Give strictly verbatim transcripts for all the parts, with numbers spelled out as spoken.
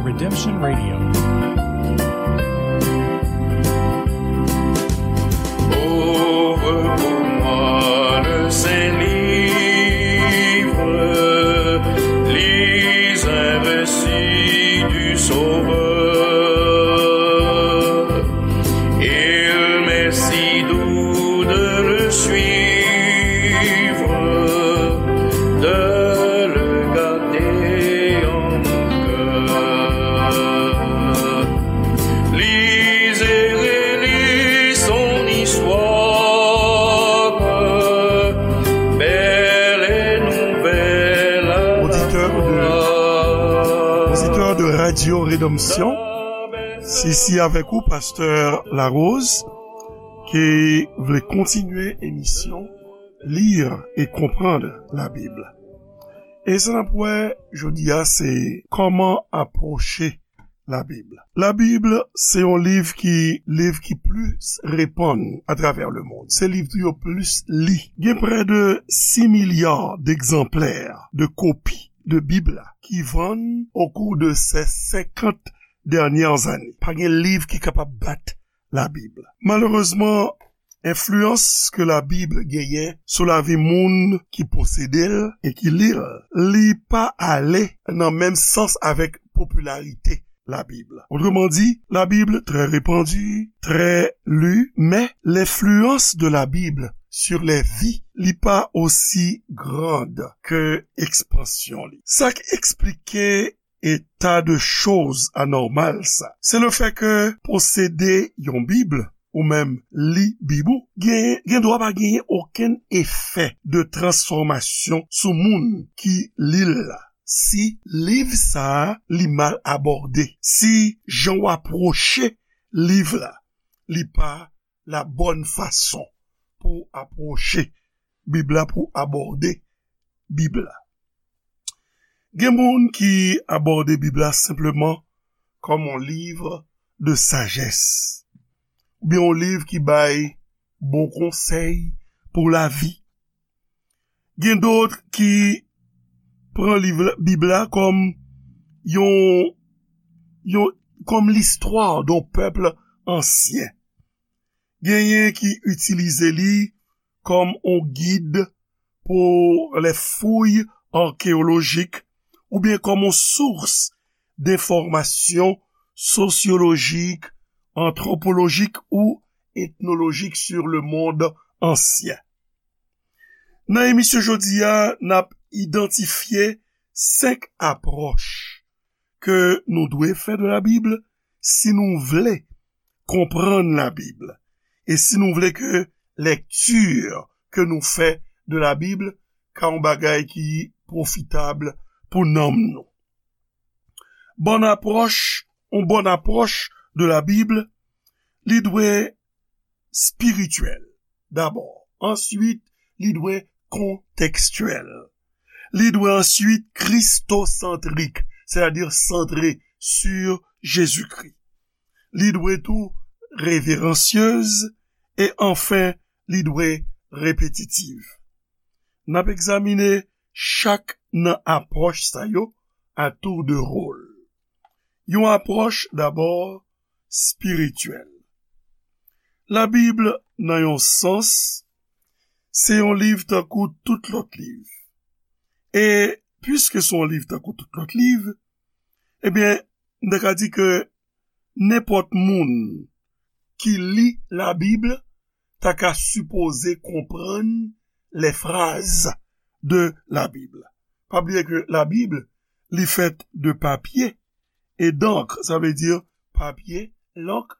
Redemption Radio. Ouvre pour moi le saint livre, lis un récit du Sauveur. Il m'est si doux de le suivre, de le garder en mon cœur. Lis et relis son histoire, belle et nouvelle à la fois. Auditeur de, auditeur de Radio Rédemption, c'est ici avec vous, Pasteur Larose, ki vle kontinye emisyon Lire et comprendre la Bible. E sa n ap wè jodi a, se kòman apwoche Labib. Labib se yon liv ki, liv ki plis repann atravè lemonn. Se liv tou yo plis li. Gen prè de sis milya degzanplè de kopi de Bib la ki vann okou de se senkant dènyè ane. Pa gen liv ki kapab bat Labib. Malerezman, enfliyans ke Labib genyen sou lavi moun ki posede l e ki li l, li pa ale nan menm sans avèk popilarite Labib. Otreman di, Labib trè repandi, trè li, men lenfliyans de Labib sur les vies, li pa osi grand ke ekspansyon li. Sa k eksplike eta de choz anòmal sa, se le fè ke posede yon Bib ou menm li Bib ou, gen, gen dwa pa genyen okenn efè de transfòmasyon sou moun ki li l la, si liv sa a li mal abòde, si jan w apwoche liv la, li pa la bòn fason pou apwoche Bib la, pou abòde Bib la. Gen moun ki abòde Bib la senpleman kòm yon liv de sajès, oubyen yon liv ki bay bon konsèy pou lavi. Gen dòt ki pran liv la, Bib la kòm yon, yon, kòm listwa d'un peuple ancien. Genyen ki itilize li kòm yon gid pour les fouilles archéologiques oubyen kòm yon sous denfòmasyon sosyolojik, antwopolojik ou etnolojik sur le monde ancien. Nan emisyon jodi a, n ap idantifye senk apwòch ke nou dwe fè de Labib si nou vle konprann Labib e si nou vle ke lèkti ke nou fè de Labib ka yon bagay ki pwofitab pou nanm nou. Bòn apwòch, yon bòn apwòch de Labib, li dwe espirityèl dabò. Answit, li dwe kontekstyèl. Li dwe answit kristosantrik, sètadi santre sur Jezikri. Li dwe tou reveransyez e anfen, li dwe repetitiv. N ap egzamine chak nan apwòch sa yo a tour de rôle. Yon apwòch dabò espirityèl. Labib, nan yon sans, se yon liv tankou tout lòt liv. E piske se yon liv tankou tout lòt liv, ebyen, m ta ka di ke nenpòt moun ki li Labib ta ka sipoze konprann les phrases de la Bible. Pa bliye ke Labib, li fèt de papye e d'encre, sa vle di papye, lank,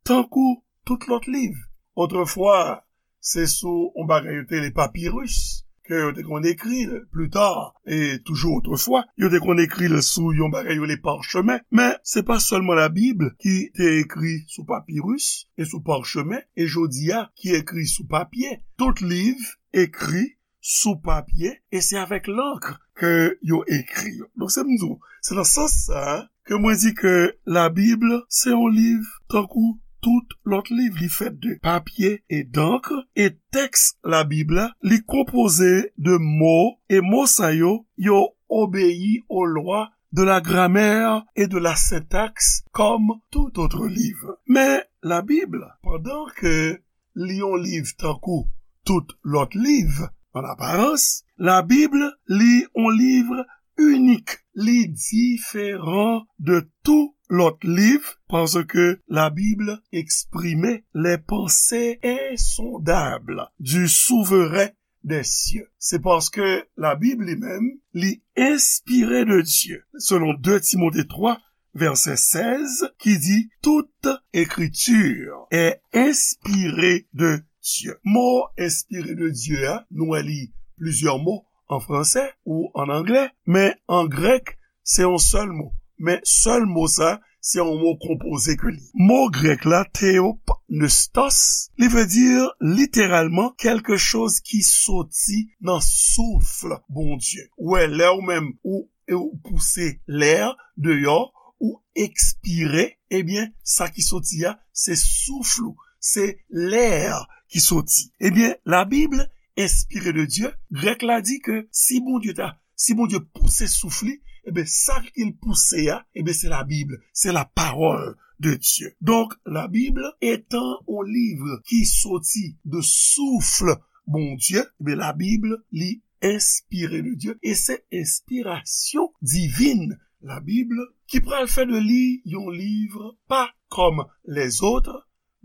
tankou tout lòt liv. Otrefwa, se sou yon bagay yo te rele papiris ke yo te konn ekri l. Pli ta, e toujou otrefwa, yo te konn ekri l sou yon bagay yo rele pachemen. Men, se pa sèlman Labib ki te ekri sou papiris e sou pachemen, e jodi a ki ekri sou papye. Tout liv ekri sou papye, e se avèk lank ke yo ekri yo. Donk, se m di w, se nan sans sa a ke mwen di ke Labib se yon liv tankou tout lòt liv. Li fèt de papye e d'encre, e tèks Labib la, li konpoze de mo, e mo sa yo, yo obeyi aux lois de la grammaire et de la syntaxe comme tout autre livre. Men Labib, pandan ke li yon liv tankou tout lòt liv, an aparans, Labib li yon liv inik. Li diferan de tout lòt liv paske Labib eksprime les pensées insondables du souverain des cieux. Se paske Labib li menm, li enspire de Dye. Selon de Timote twa, vèsè sèz, ki di, toute écriture est inspirée de Dieu. Mo enspire de Dye a, nou wè li plizyè mo an fransè ou an anglè, men an grèk, se yon sèl mo. Men sèl mo sa, se yon mo konpoze ke li. Mo grèk la, theopneustos, li vle di literalman quelque chose ki soti nan souf Bondye. Ou wè, lè ou menm ou, ou pouse lè deyò, ou ekspire, ebyen, sa ki soti a, se souf ou, se lè ki soti. Ebyen, Labib enspire de Dye, grèk la di ke si Bondye ta, si Bondye pouse souf li, ebyen, sa ke l pouse a, ebyen, se Labib, se la parole de Dieu. Donk, Labib, etan yon liv ki soti de souf Bondye, ebyen, Labib, li enspire de Dye, e se enspirasyon divin Labib ki pral fè de li yon liv pa kòm lèzòt,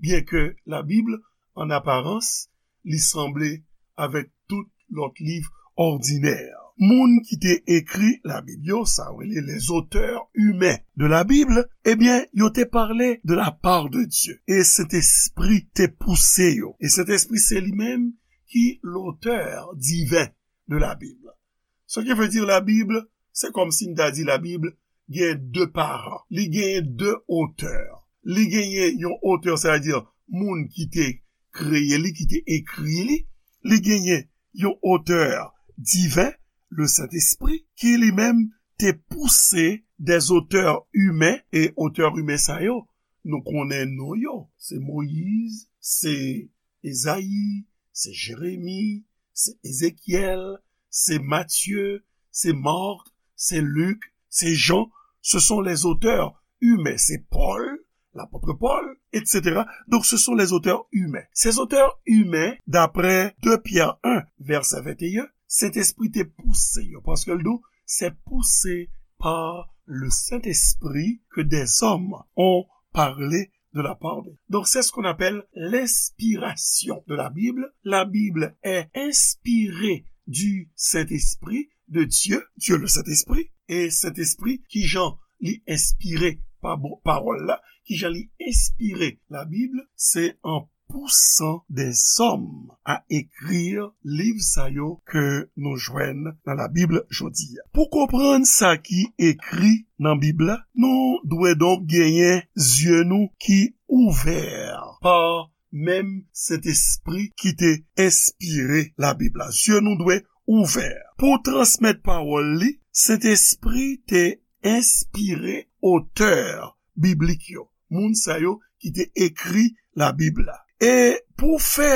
byenke Labib, an aparans, li sanble avèk tout lòt liv òdinè. Moun ki te ekri Labib yo, sa yo rele les auteurs humains de la Bible, ebyen, yo te pale de la part de Dieu. E Sentespri te pouse yo. E Sentespri se li menm ki l'auteur divin de la Bible. Ce qui veut dire Labib, se kòmsi n ta di Labib gen de paran. Li genyen de otè. Li genyen yon otè, sètadi moun ki te kreye li, ki te ekri li. Li genyen yon otè diven, le Sentespri, ki li menm te pouse des auteurs humains, e otè imen sa yo, nou konnen non yo. Se Moyiz, se Ezayi, se Jeremi, se Ezekyèl, se Matye, se Mak, se Lik, se Jan. Ce sont les auteurs humains. C'est Paul, l'apôtre Paul, et cetera. Donc, ce sont les auteurs humains. Ces auteurs humains, d'après deux Pierre un, verset vingt et un, Sentespri te pouse yo, paske l di, c'est poussé par le Saint-Esprit que des hommes ont parlé de la part de. Donc, c'est ce qu'on appelle l'inspiration de la Bible. La Bible est inspirée du Saint-Esprit, de Dieu, Dieu le Saint-Esprit, e Sentespri, kijan li enspire pa bon, pawòl la, kijan li enspire Labib, se an pousan dèzòm a ekri liv sa yo ke nou jwenn nan Labib jodi a. Pou konprann sa ki ekri nan Bib la, nou dwe donk genyen zye nou ki ouvè pa menm Sentespri ki te enspire Labib la. Zye nou dwe ouvè. Pou transmèt pawòl li, Sentespri te enspire otè biblik yo, moun sa yo ki te ekri Labib la. E pou fè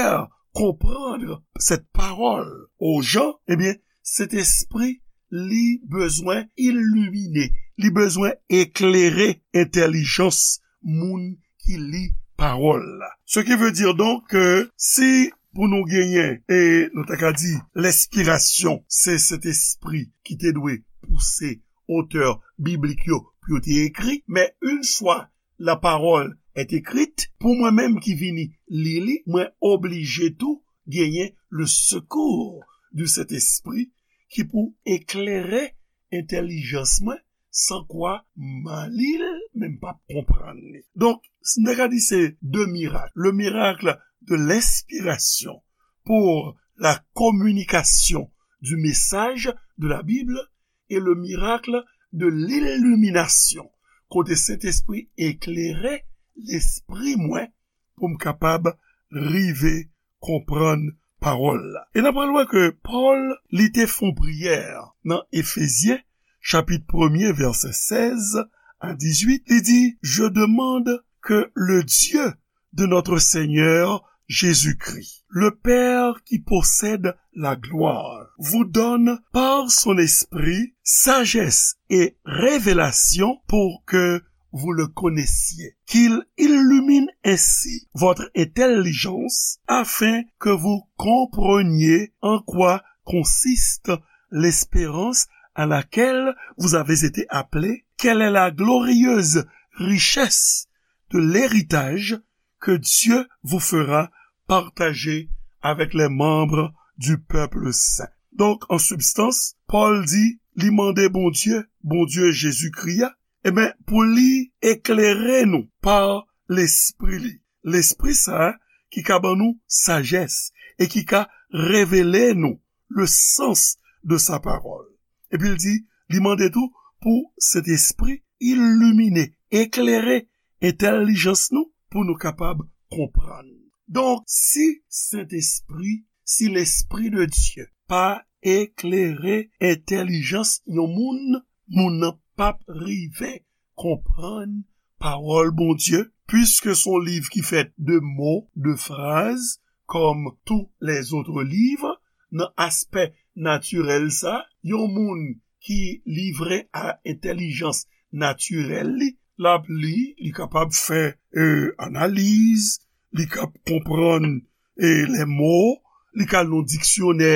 konprann cette parole aux gens, ebyen, Sentespri, li bezwen ilimine, li bezwen eklere entèlijans moun ki li pawòl la. Ce qui veut dire donc que si pou nou genyen, e nou ta ka di, lenspirasyon, se Sentespri ki te dwe pouse otè biblik yo pou yo te ekri, men une fois la parole est écrite, pou mwen menm ki vini li li, mwen oblije tou genyen le secours du Saint-Esprit ki pou eklere entèlijans mwen, san kwa m a li l, men m p ap konprann li. Donk, si n ta ka di se de mirak, le miracle de l'inspiration pour la communication du message de la Bible et le miracle de l'illumination, kote Sentespri eklere lespri mwen pou m kapab rive konprann pawòl la. E n ap pral wè ke Pòl, li te fè yon priyè nan Efezyen, chapit premye, vèsè sèz a dizuit, li di, je demande que le Dieu de notre Seigneur Jésus-Christ. Le Père qui possède la gloire vous donne par son esprit sagesse et révélation pour que vous le connaissiez, qu'il illumine ainsi votre intelligence afin que vous compreniez en quoi consiste l'espérance à laquelle vous avez été appelés, quelle est la glorieuse richesse de l'héritage que Dieu vous fera partager avec les membres du peuple saint. Donk, an sibstans, Pòl di, li mande Bondye, Bondye Jezikri a, ebyen, pou li eklere nou pa Lespri li. Lespri sa a ki ka ban nou sajès e ki ka revele nou le sens de sa parole. Epi l di, li mande tou pou Sentespri ilimine, eklere entèlijans nou pou nou kapab konprann. Donk, si Sentespri, si Lespri de Dye pa eklere entèlijans yon moun, moun nan p ap rive konprann pawòl Bondye, piske se yon liv ki fèt de mo, de fraz, kòm tou lèzòt liv, nan aspè natirèl sa, yon moun ki livre a entèlijans natirèl li, l ap li, li kapab fè, e, analiz, li kab konprann, e, lè mo, li ka al nan diksyonè,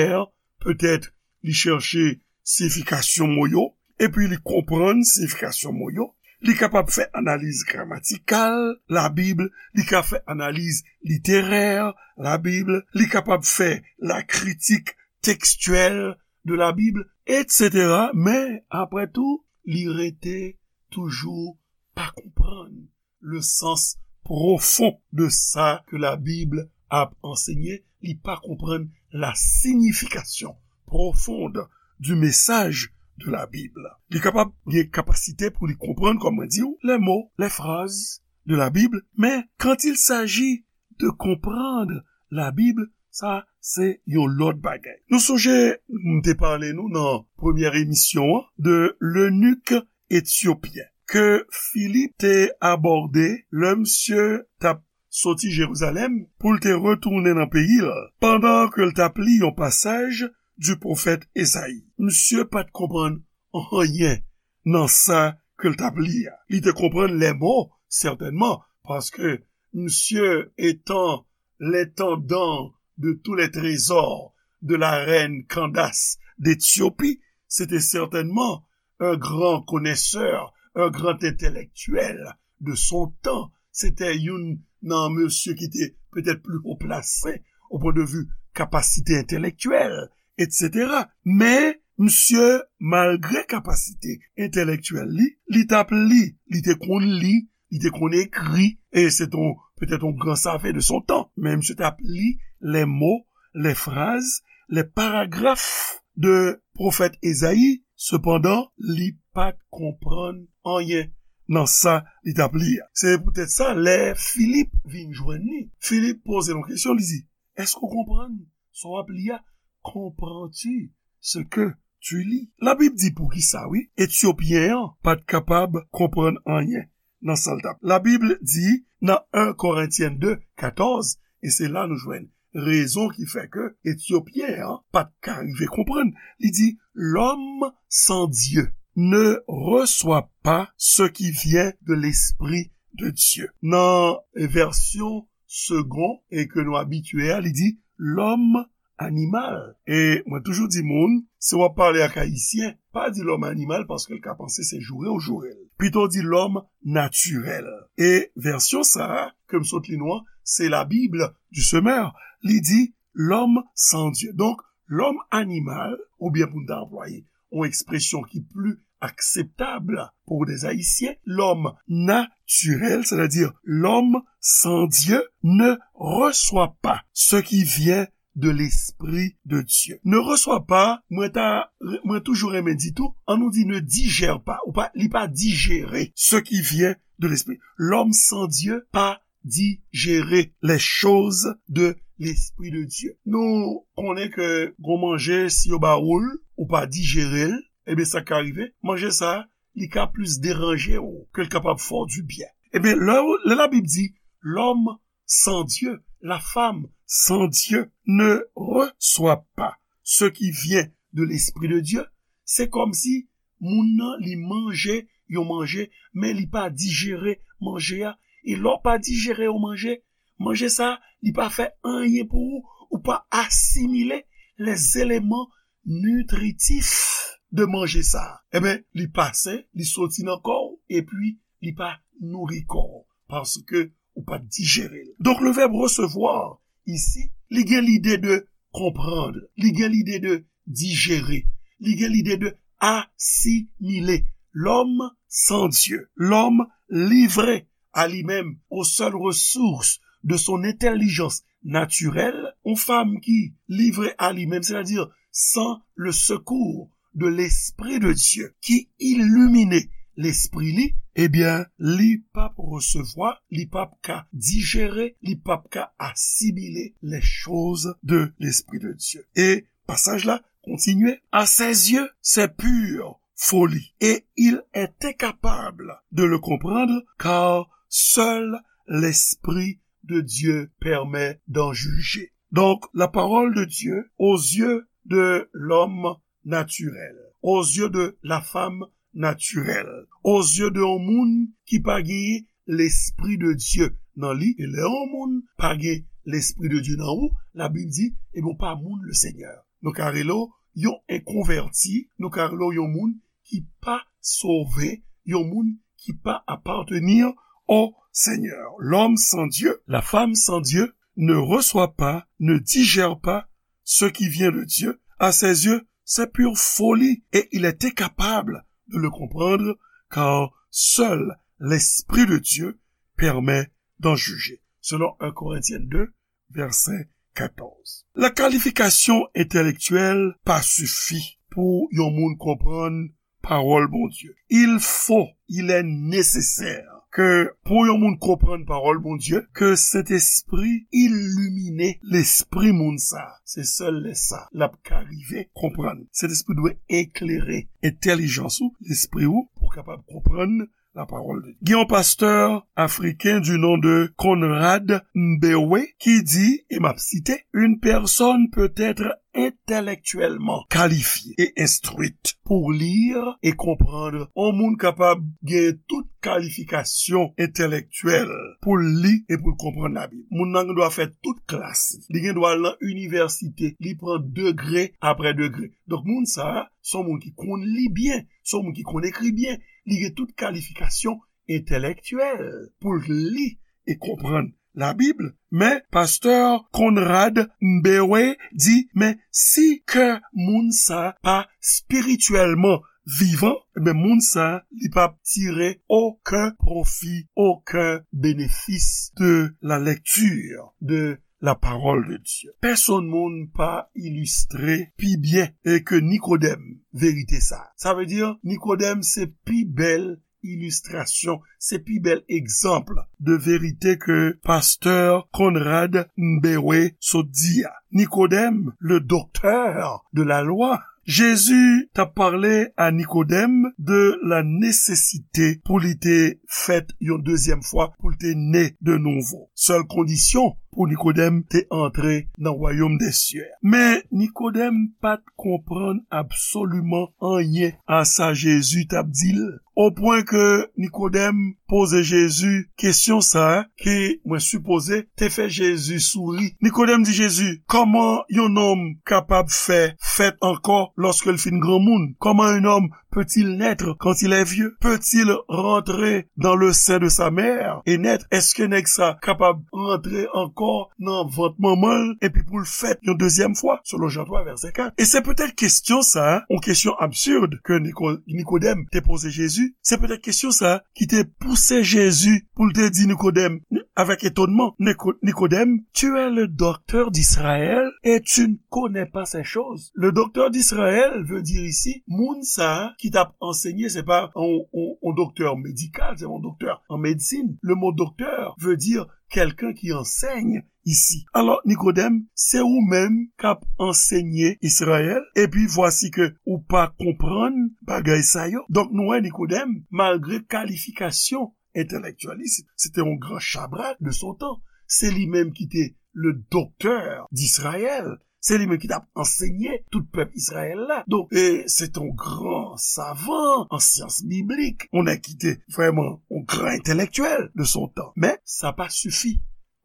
petèt li chèche siyifikasyon mo yo, epi li konprann siyifikasyon mo yo. Li kapab fè analiz gramatikal Labib, li ka fè analiz literè Labib, li kapab fè la critique textuelle de la Bible, et cetera. Men, apre tou, li rete toujou pa konprann le sens profond de sa ke Labib ap ansenye, li pa konprann la signification profonde du message de la Bible. Li kapab gen kapasite pou li konprann, kòm mwen di w, les mots, les phrases de la Bible, men quand il s'agit de comprendre la Bible, sa se yon lòt bagay. Nou sonje, m te pale nou nan premyè emisyon an de lenik etyopyen ke Filip te abòde lè misye t ap soti Jerizalèm pou l te retounen nan peyi l, pandan ke l t ap li yon pasaj di pwofèt Ezayi. Misye pa t konprann anyen nan sa ke l t ap li a. Li te konprann lè mo, sètènman, paske misye etan l'intendant de tous les trésors de la reine Candace d'Éthiopie, se te sètènman un grand connaisseur, un grand intellectuel de son temps. Se te youn nan mesye ki te petèt pli wo plase au point de vue kapasite entèlektyèl, et cetera. Men, misye, malgre kapasite entèlektyèl li, li t ap li, li te konn li, li te konn ekri, e se te yon, petèt yon gran savan de son tan. Men misye t ap li les mots, les phrases, les paragraphes de pwofèt Ezayi. Sepandan, li pa t konprann anyen nan sa li t ap li a. Se poutèt sa, lè Filip vin jwenn li, Filip poze l yon kesyon, li di, èske w konprann sa w ap li a? Comprends-tu ce que tu lis? Labib di poukisa, wi, Etyopyen an pa t kapab konprann anyen nan sa l t ap. Labib di nan en Korentyen de, katòz, e se la nou jwenn rezon ki fè ke Etyopyen an pa t ka rive konprann. Li di, l'homme sans Dieu ne reçoit pas ce qui vient de l'Esprit de Dieu. Nan vèsyon Segond, e ke nou abitye a, li di, l'homme animal. E mwen toujou di moun, si w ap pale ak Ayisyen, pa di l'homme animal paske l ka panse se joure w joure l. Pito di l'homme naturel. E vèsyon sa a, ke m sot li nou an, se la Bible du Semeur. Li di, l'homme sans Dieu. Donk, l'homme animal, oubyen pou n ta anplwaye yon ekspresyon ki pli akseptab pou des Ayisyen, l'homme naturel, c'est-à-dire l'homme sans Dieu, ne reçoit pas ce qui vient de l'Esprit de Dieu. Ne reçoit pas, mwen ta, mwen toujou renmen di tou, an nou di ne digère pas, ou pa, li pa dijere ce qui vient de l'Esprit. L'homme sans Dieu pa dijere les choses de l'Esprit de Dieu. Nou konnen ke gon manje, si yo ba ou l, ou pa dijere l, ebyen sa ka rive, manje sa, li ka plis deranje w ke l kapab fè w du byen. Ebyen, lè, lè Labib di, l'homme sans Dieu, la femme sans Dieu ne reçoit pas ce qui vient de l'Esprit de Dieu, se kòmsi moun nan, li manje yon manje, men li pa dijere manje a. E lè w pa dijere yon manje, manje sa, li pa fè anyen pou ou, ou pa asimile les éléments nutritifs de manje sa. Ebyen, li pase, li soti nan kò w, epi li pa nouri kò w, paske ou pa t dijere l. Donk, le verbe recevoir, isi, li gen lide de konprann, li gen lide de dijere, li gen lide de asimile. L'homme sans Dieu, l'homme livré à lui-même, aux seules ressources de son intelligence naturelle, yon fanm ki livre a li menm, c'est-à-dire sans le secours de l'Esprit de Dieu qui illumine lespri li, ebyen, li p ap resevwa, li p ap ka dijere, li p ap ka asimile les choses de l'Esprit de Dieu. E pasaj la kontinye, à ses yeux, c'est pure folie, et il est incapable de le comprendre, car seul l'Esprit de Dieu permet d'en juger. Donc, la parole de Dieu, aux yeux de l'homme naturel, aux yeux de la femme naturelle, aux yeux de yon moun ki pa gen l'Esprit de Dieu nan li, e lè yon moun pa gen l'Esprit de Dieu nan ou, Labib di, ebyen, ou pa moun le Seigneur. Nou ka rele w yon enkonvèti, nou ka rele w yon moun ki pa sove, yon moun ki pa appartenir au Seigneur. L'homme sans Dieu, la femme sans Dieu ne reçoit pas, ne digère pas ce qui vient de Dieu. À ses yeux, c'est pure folie et il est incapable de le comprendre, car seul l'Esprit de Dieu permet d'en juger. Selon un Corinthiens deux, verset quatorze. La kalifikasyon entèlektyèl pa sifi pou yon moun konprann pawòl Bondye. Il faut, il est nécessaire ke pou yon moun konprann pawòl Bondye, ke Sentespri ilimine lespri moun sa. Se sèl lè sa l ap ka rive konprann. Sentespri dwe eklere entèlijans ou, lespri ou, pou w kapab konprann la parole de Dieu. Gen yon pastè afriken du nom de Conrad Mbewe ki di, e m ap site, une personne peut être intellectuellement qualifiée et instruite pour lire et comprendre. Yon moun kapab gen tout kalifikasyon entèlektyèl pou l li e pou l konprann Labib. Moun nan gen dwa fè tout klas. Li gen dwa al nan inivèsite. Li pran degre apre degre. Donk, moun sa a, se yon moun ki konn li byen, se yon moun ki konn ekri byen. Li gen tout kalifikasyon entèlektyèl pou l li e konprann Labib, men pastè Conrad Mbewe di, men si kè moun sa pa espirityèlman vivan, men moun sa li p ap tire okenn pwofi, okenn benefis de la lecture de la parole de Dieu. Pèsonn moun pa ilistre pi byen e ke Nikodèm verite sa. Sa vle di, Nikodèm se pi bèl ilistrasyon, se pi bèl egzanp de verite ke pastè Conrad Mbewe sot di a. Nikodèm, le docteur de la loi, Jezi t ap pale a Nikodèm de la nesesite pou li te fèt yon dezyèm fwa, pou l te ne de nouvo. Sèl kondisyon pou Nikodèm te antre nan wayòm dè syè. Men Nikodèm pa t konprann absoliman anyen a sa Jezi t ap di l. O pwen ke Nikodèm poze Jezi kesyon sa a, ki, mwen sipoze, te fè Jezi souri. Nikodèm di Jezi, comment un homme capable fait fèt ankò lòske l fin granmoun? Comment un homme peut-il naître quand il est vieux? Peut-il rentrer dans le sein de sa mère et naître? Èske nèg sa kapab rantre ankò nan vant manman l epi pou l fèt yon dezyèm fwa? Selon Jan twa, vèsè kat. E se petèt kesyon sa a, yon kesyon absid ke Niko-, Nikodèm te poze Jezi, se petèt kesyon sa a ki te pouse Jezi pou l te di Nikodèm, avèk etonnman, Niko-, Nikodèm, tu es le docteur d'Israël et tu ne connais pas ces choses. Le docteur d'Israël veut dire ici, moun sa a ki t ap ansenye, se pa yon, yon, yon doktè medikal, se yon doktè an medsin. Le mot docteur veut dire quelqu'un qui enseigne ici. Alò, Nikodèm, se ou menm k ap ansenye Izrayèl, epi vwasi ke ou pa konprann bagay sa yo. Donk, nou wè Nikodèm, malgre kalifikasyon entèlektyèl li, se, se te yon gran chabrak de son tan. Se li menm ki te le docteur d'Israël. Se li menm ki t ap ansenye tout pèp Izrayèl la. Donk, e, se te yon gran savan an syans biblik, yon nèg ki te vrèman yon gran entèlektyèl de son tan. Men, sa pa sifi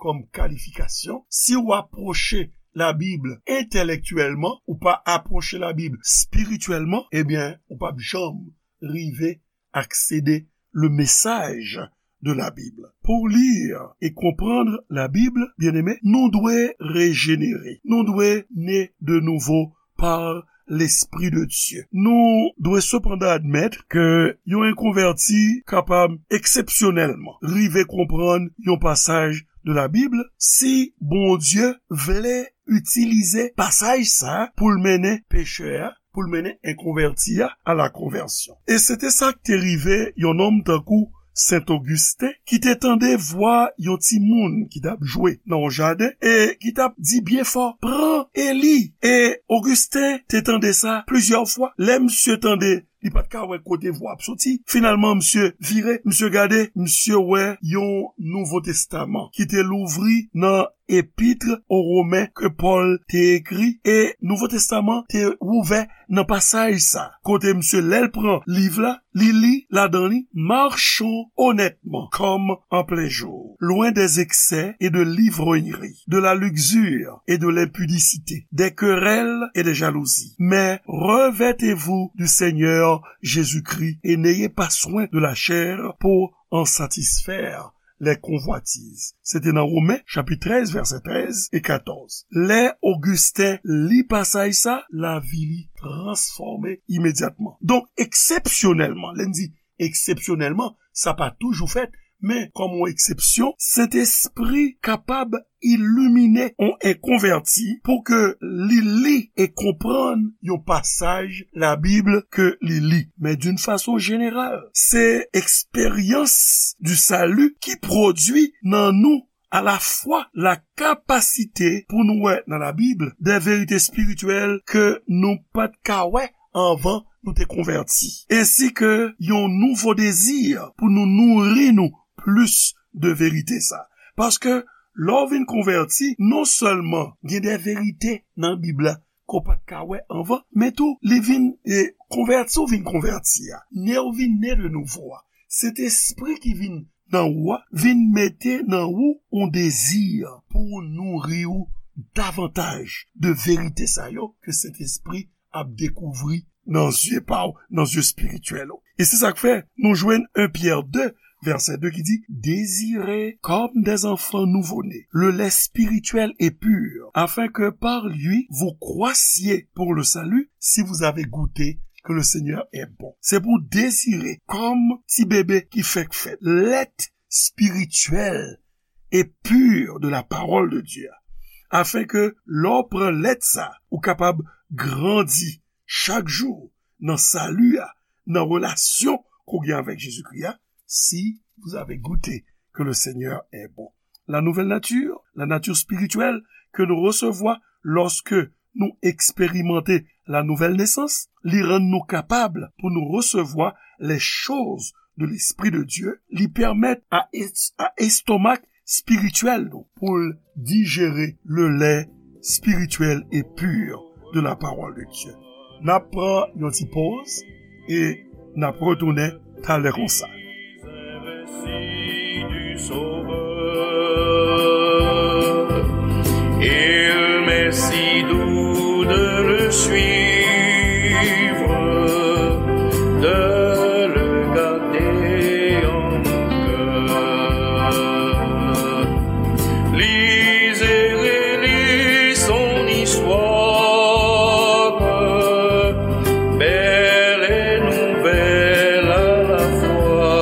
kòm kalifikasyon. Si w apwoche Labib entèlektyèlman, ou pa apwoche Labib espirityèlman, ebyen, ou p ap janm rive aksede le message de la Bible. Pour lire et comprendre la Bible, bien-aimé, nou dwe rejenere. Nou dwe ne de nouvo par Lespri de Dye. Nou dwe sepandan admèt ke yon enkonvèti kapab eksepsyonèlman rive konprann yon pasaj de la Bib si Bondye vle itilize pasaj sa a pou l mennen pechè a, pou l mennen enkonvèti a a la konvèsyon. E se te sa k te rive yon nonm tankou Sen Ogisten, ki te tande vwa yon timoun ki t ap jwe nan yon jaden e ki t ap di byen fò, "Pran Eli!" E Ogisten te tande sa plizyè fwa. Lè misye tande, li pa t ka wè kote vwa ap soti. Finalman, misye vire, misye gade, misye wè yon Nouvo Testaman ki te louvri nan Epître aux Romains ke Pòl te ekri, e Nouvo Testaman te ouvè nan pasaj sa, kote misye, lè l pran liv la, li li ladan li, "Marchons honnêtement comme en plein jour, loin des excès et de l'ivrognerie, de la luxure et de l'impudicité, des querelles et des jalousies. Mais revêtez-vous du Seigneur Jésus-Christ et n'ayez pas soin de la chair pour en satisfaire les convoitises." Se te nan Women, chapit trèz, vèsè trèz e katòz. Lè Ogisten li pasaj sa, lavi li transfòme imedyatman. Donk, eksepsyonèlman, lè n di eksepsyonèlman, sa pa toujou fèt, men kòm yon eksepsyon, Sentespri kapab ilimine yon enkonvèti pou ke li li e konprann yon pasaj Labib ke li li. Men d'une façon générale, se eksperyans du salut ki pwodui nan nou alafwa la kapasite pou nou wè nan Labib de verite espirityèl ke nou pa t ka wè anvan nou te konvèti, ensi ke yon nouvo dezi pou nou nouri nou plis de verite sa. Paske lè w vin konvèti, non sèlman gen de verite nan Bib la ke w pa t ka wè anvan, men tou, li vin, e, konvèti w vin konvèti a, ne w vin ne de nouvo a. Sentespri ki vin nan ou a, vin mete nan ou yon dezi pou nouri w davantaj de verite sa yo ke Sentespri ap dekouvri nan zye pa w, nan zye espirityèl ou. E se sa k fè nou jwenn en Pyè de, vèsè de ki di, "Désirez comme des enfants nouveau-nés le lait spirituel et pur, afin que par lui vous croissiez pour le salut, si vous avez goûté que le Seigneur est bon." Se pou dezire kòm ti bebe ki fèk fèt, lèt spirityèl e pur de la parole de Dieu, afin que lè w pran lèt sa, ou kapab grandi chak jou nan sali a, nan relasyon ke w gen avèk Jezikri a, si vous avez goûté que le Seigneur est bon. La nouvelle nature, la nature spirituelle que nous recevons lorsque nou eksperimante la nouvelle naissance, li rann nou kapab pou nou resevwa les choses de l'Esprit de Dieu, li pèmèt a, es- a estomak espirityèl nou pou l dijere le lait spirituel et pur de la parole de Dieu. N ap pran yon ti poz e n ap retounen talè konsa. Il m'est si doux de le suivre, de le garder en mon cœur. Lisez et lis son histoire, belle et nouvelle à la fois.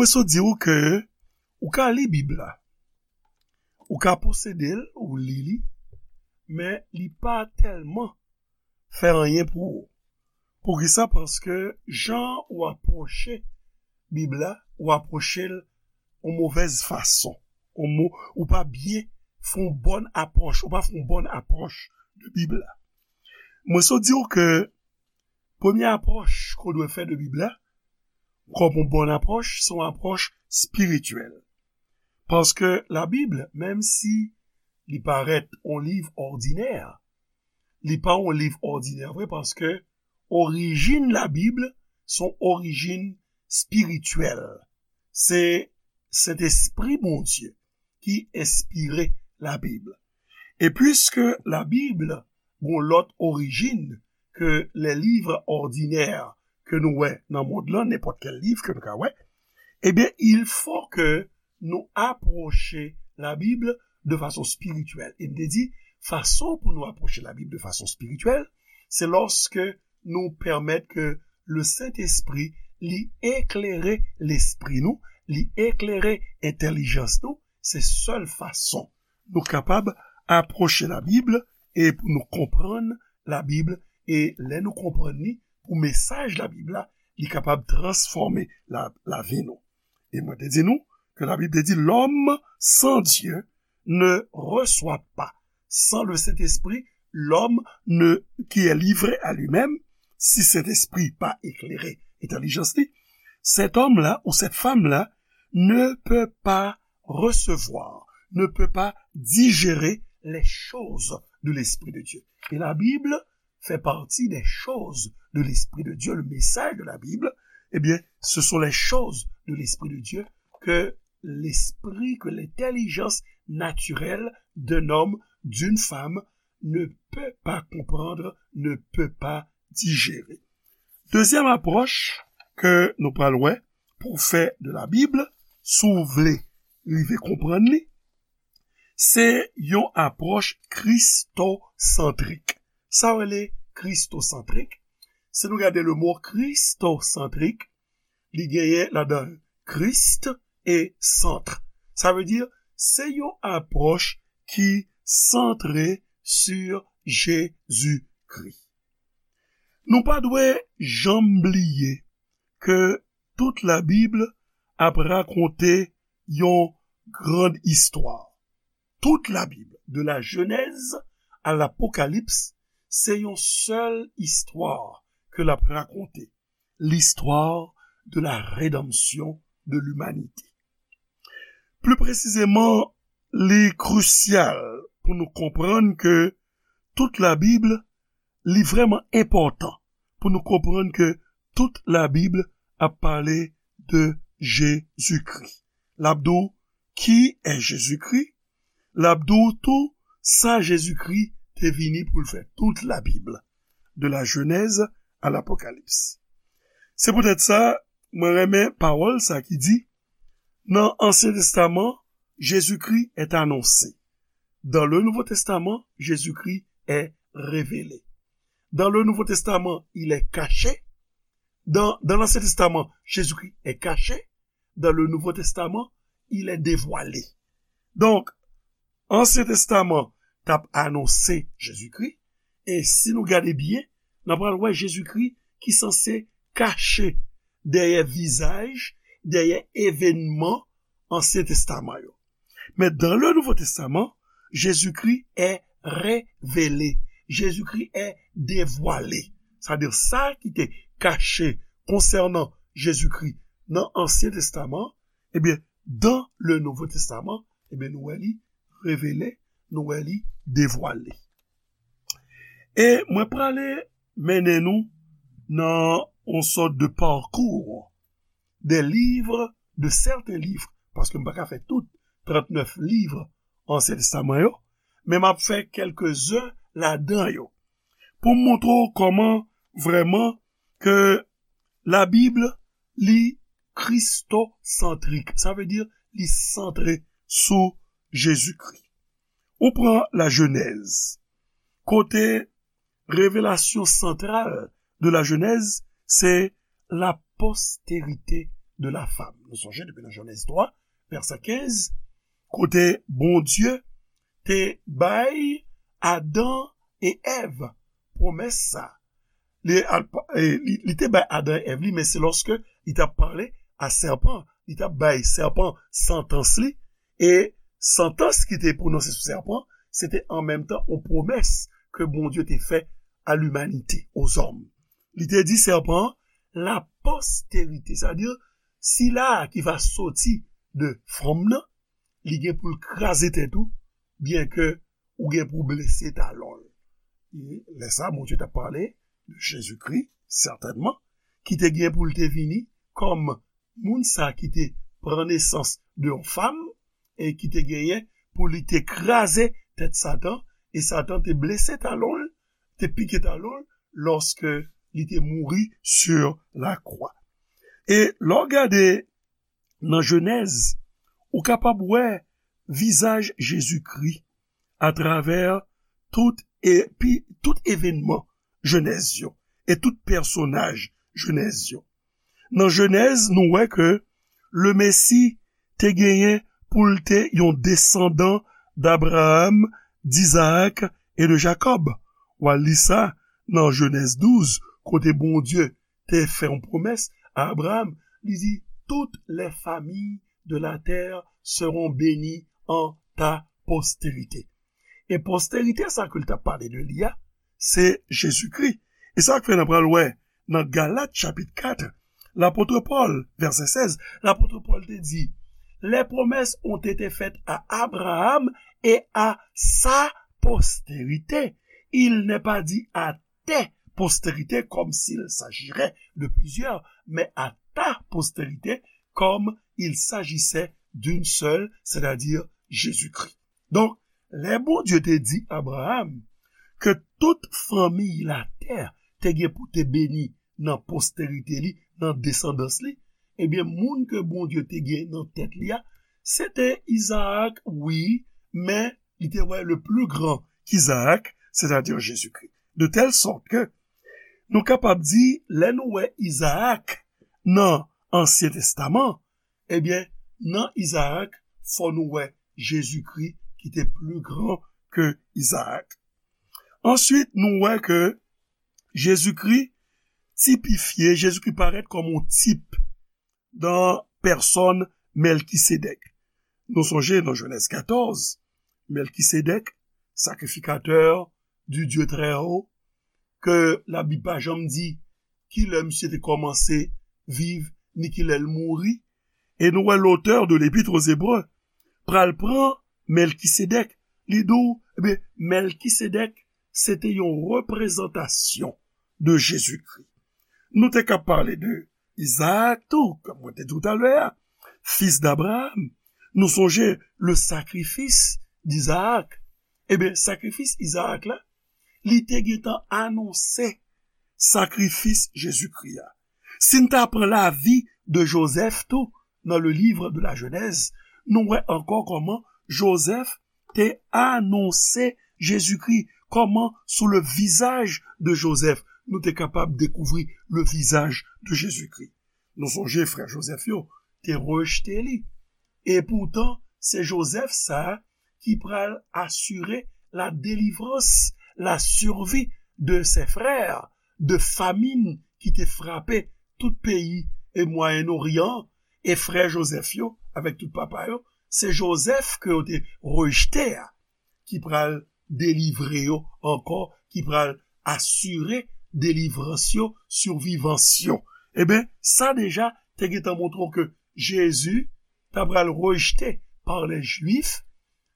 Mwen sot di w ke ou ka li Bib la, ou ka posede l, ou li li, men li pa tèlman fè anyen pou ou. Poukisa? Paske jan ou apwoche Bib la, ou apwoche l yon movèz fason. Ou mo, ou pa byen fè yon bòn apwòch, ou pa fè yon bòn apwòch de Bib la. Mwen sot di w ke premye apwòch ke w dwe fè de Bib la, kòm yon bòn apwòch, se yon apwòch espirityèl. Paske Labib, menm si li parèt yon liv òdinè, li pa yon liv òdinè vre, paske orijin Labib se yon orijin espirityèl. Se Sentespri Bondye ki enspire Labib. E piske Labib gen lòt orijin ke lè liv òdinè ke nou wè nan mond lan, nenpòt kèl liv ke nou ka wè, ebyen, il faut que nou apwoche Labib de fason espirityèl. E m te di, fason pou nou apwoche Labib de fason espirityèl, se lòske nou pèmèt ke le Sentespri li eklere lespri nou, li eklere entèlijans nou. Se sèl fason nou kapab apwoche Labib e pou nou konprann Labib, e lè nou konprann li, pou mesaj Labib la, li kapab transfòme la, lavi nou. E mwen te di nou ke Labib te di, l'homme sans Dieu ne reçoit pas. Sans le Saint-Esprit, l'homme ne, qui est livré à lui-même, si Sentespri pa eklere entèlijans li, cet homme-là ou cette femme-là ne peut pas recevoir, ne peut pas digérer les choses de l'Esprit de Dieu. Et la Bible fait partie des choses de l'Esprit de Dieu, le message de la Bible, eh bien, ce sont les choses de l'Esprit de Dieu que l'esprit, que l'intelligence naturelle d'un homme, d'une femme, ne peut pas comprendre, ne peut pas digérer. Dezyèm apwòch ke nou pral wè pou fè de Labib, si w vle rive konprann li, se yon apwòch kristosantrik. Sa w rele kristosantrik? Si nou gade le mo kristosantrik, li genyen ladan Christ e centre. Sa vle di, se yon apwòch ki santre sur Jezikri. Nou pa dwe janm bliye ke tout Labib ap rakonte yon grand istwa. Tout Labib, de la Jenèz a Lapokalips, se yon sèl istwa ke l ap rakonte, l'histoire de la rédemption de l'humanité. Pli presizeman, li krisyal pou nou konprann ke tout Labib, li vrèman enpòtan pou nou konprann ke tout Labib ap pale de Jezikri. L ap di w, qui est Jésus-Christ? L ap di w tou sa Jezikri te vini pou l fè, tout Labib, de la Jenèz a Lapokalips. Se poutèt sa, mwen renmen pawòl sa ki di, nan Ansyen Testaman, Jésus-Christ est annoncé. Dans le Nouveau Testament, Jésus-Christ est révélé. Dans le Nouveau Testament, il est caché. Dans, dans l'Ancien Testament, Jésus-Christ est caché. Dans le Nouveau Testament, il est dévoilé. Donk, Ansyen Testaman t ap anonse Jezikri, e si nou gade byen, n ap pral wè Jezikri ki sanse kache dèyè vizaj, dèyè evènman Ansyen Testaman yo. Men dans le Nouveau Testament, Jésus-Christ est révélé. Jezikri est dévoilé. Sa di sa ki te kache konsènan Jezikri nan Ansyen Testaman, ebyen, dans le Nouveau Testament, ebyen, nou wè li revele, nou wè li devwale. E mwen prale mennen nou nan yon sòt de parcours des livres, de certains livres, paske m pa ka fè tout trannèf liv Ansyen Testaman yo, men m ap fè kèlkezen ladan yo pou m montre w kòman vrèman ke Labib li kristosantrik. Sa vle di li santre sou Jezikri. Ou pran la Jenèz, kote revelasyon santral de la Jenèz, se la postérité de la femme. Nou sonje depi nan Jenèz twa, vèsè kenz, kote Bondye te bay Adan e Èv pwomès sa. Li, al- e, li, li te bay Adan e Èv li, men se lòske li t ap pale a sèpan, li t ap bay sèpan santans li, e santans ki te pwononse sou sèpan, se te an menm tan yon pwomès ke Bondye te fè a limanite, ozòm. Li te di sèpan an, la postérité, sètadi sila ki va soti de fanm nan, li gen pou l kraze tèt ou, byenke ou gen pou blese talon l. E lè sa a, Bondye t ap pale de Jezikri, sètènman, ki te gen pou l te vini kòm moun sa ki te pran nesans de yon fanm e ki te genyen pou li te kraze tèt Satan, e Satan te blese talon l, te pike talon l, lòske li te mouri sur la croix. E lè w gade nan Jenèz, ou kapab wè vizaj Jezikri atravè tout, epi, tout evènman Jenèz yo e tout pèsonaj Jenèz yo. Nan Jenèz, nou wè ke Lemesi te genyen pou l te yon desandan d'Abraham, d'Izaak e de Jakòb. W a li sa nan Jenèz douz, kote Bondye te fè yon pwomès a Abraham. Li di, toutes les familles de la terre seront bénies en ta postérité. E postérité sa ke l t ap pale de li a, se Jezikri. E sa k fè n ap pral wè nan Galat chapit kat, lapot Pòl, vèsè sèz, lapot Pòl te di, les promesses ont été faites à Abraham et à sa postérité. Il n'est pas dit à tes postérités comme s'il s'agirait de plusieurs, mais à ta postérité comme il s'agissait d'une seule, c'est-à-dire Jésus-Christ. Donk, lè Bondye te di Abraham ke tout fanmi latè te gen pou te beni nan postérité li, nan desandans li, ebyen, moun ke Bondye te gen nan tèt li a, se te Izaak, wi, men li te wè le plus grand qu'Isaac, c'est-à-dire Jésus-Christ. De telle sorte que nou kapab di, lè nou wè Izaak nan Ansyen Testaman, ebyen, nan Izaak, fò nou wè Jezikri ki te plus grand que Isaac. Answit, nou wè ke Jezikri tipifye, Jezikri parèt kòm yon tip nan pèsòn Mèlkisedèk. Nou sonje nan Jenèz katòz, Mèlkisedèk, sacrificateur du Dieu très haut, ke Labib pa janm di ki lè misye te kòmanse viv, ni ki lè l mouri. E nou wè l'auteur de l'Épître aux Hébreux pral pran Mèlkisedèk. Li di w, ebyen, Mèlkisedèk, se te yon reprezantasyon de Jezikri. Nou te ka pale de Izaak tou, kòm mwen te di w talè a, fils d'Abraham. Nou sonje le sacrifice d'Isaac. Ebyen, sakrifis Izaak la, li te gentan anonse sakrifis Jezikri a. Si n ta pran lavi de Jozèf tou, nan le livre de la Genèse, nou wè ankò kòman Jozèf te anonse Jezikri, kòman sou le visage de Joseph, nou te kapab dekouvri le visage de Jezikri. Nou sonje frè Jozèf yo te rejte li. E poutan, se Jozèf sa a ki pral asire la délivrance, la survie de ses frères, de famin ki te frape tout peyi e Mwayen Oryan, e frè Jozèf yo, avèk tout papa yo, se Jozèf ke yo te rejte a, ki pral delivre yo ankò, ki pral asire delivrans yo, sirvivans yo. Ebyen, sa deja te gentan montre w ke Jezi ta pral rejte pa lè Jwif,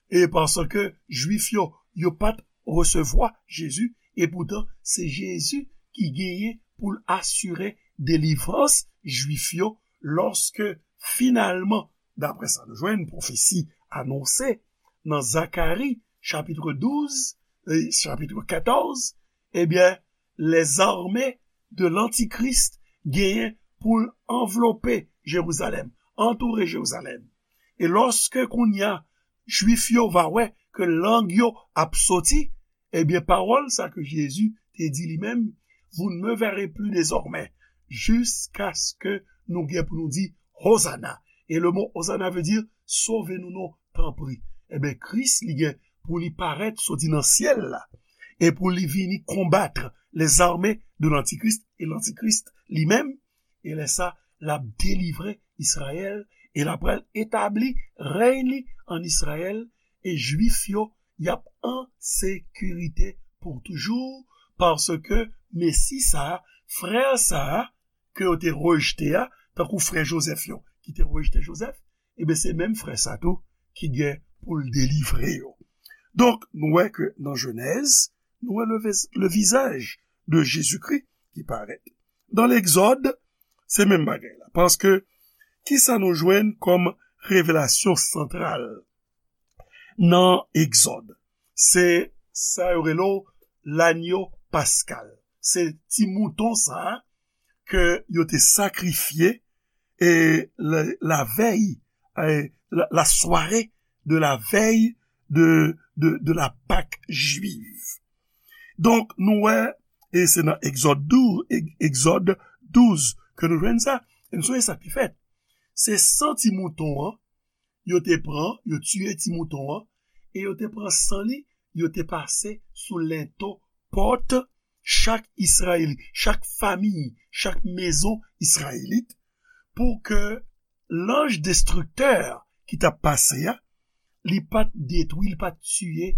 e paske Jwif yo, yo pa t resevwa Jezi, e poutan se Jezi ki genyen pou l asire delivrans Jwif yo lòske finalman, daprè sa nou jwenn pwofesi anonse nan Zakari chapit douz e chapit katòz, ebyen, lèzame de lantikris genyen pou l anvlope Jerizalèm, antoure Jerizalèm. E lòske kounye a Jwif yo va wè ke lang yo ap soti, ebyen, pawòl sa ke Jezi te di li menm, vous ne me verrez plus désormais, jusqu'à ce que nou gen pou nou di, Hozana. E le mo Hozana vle di, sove nou non, tanpri. Ebyen, Kris, li gen pou li parèt soti nan syèl la, e pou li vini konbat les armées de l'Antichrist, e Lantikris li menm, e lè sa, l ap delivre Izrayèl, e l ap pral etabli rèy li ann Izrayèl, e Jwif yo, y ap an sekirite pou toujou, paske Mesi sa a, frè sa a, ke yo te rejte a, tankou frè Jozèf yo, ki te rejte Jozèf, ebyen, se menm frè sa tou ki gen pou l delivre yo. Donk, nou wè ke nan Jenèz, nou wè le, vis- le visage de Jésus-Christ ki parèt. Nan Legzòd, se menm bagay la. Paske, kisa nou jwenn kòm revelasyon santral nan Egzòd? Se sa yo rele w lanyo paskal. Se ti mouton sa a ke yo te sakrifye e la, la vèy, e la, la soirée de la veille de, de, de la Pâque juive. Donk, nou wè, e se nan Egzòd douz, Eg- Egzòd douz ke nou jwenn sa. E nou sonje sa ki fèt. Se san ti mouton an, yo te pran, yo tiye ti mouton an, e yo te pran san li, yo te pase sou lento pòt chak Izrayelit, chak fanmi, chak mezon Izrayelit, pou ke lanj destriktè ki t ap pase a, li pa t detwi, li pa t tiye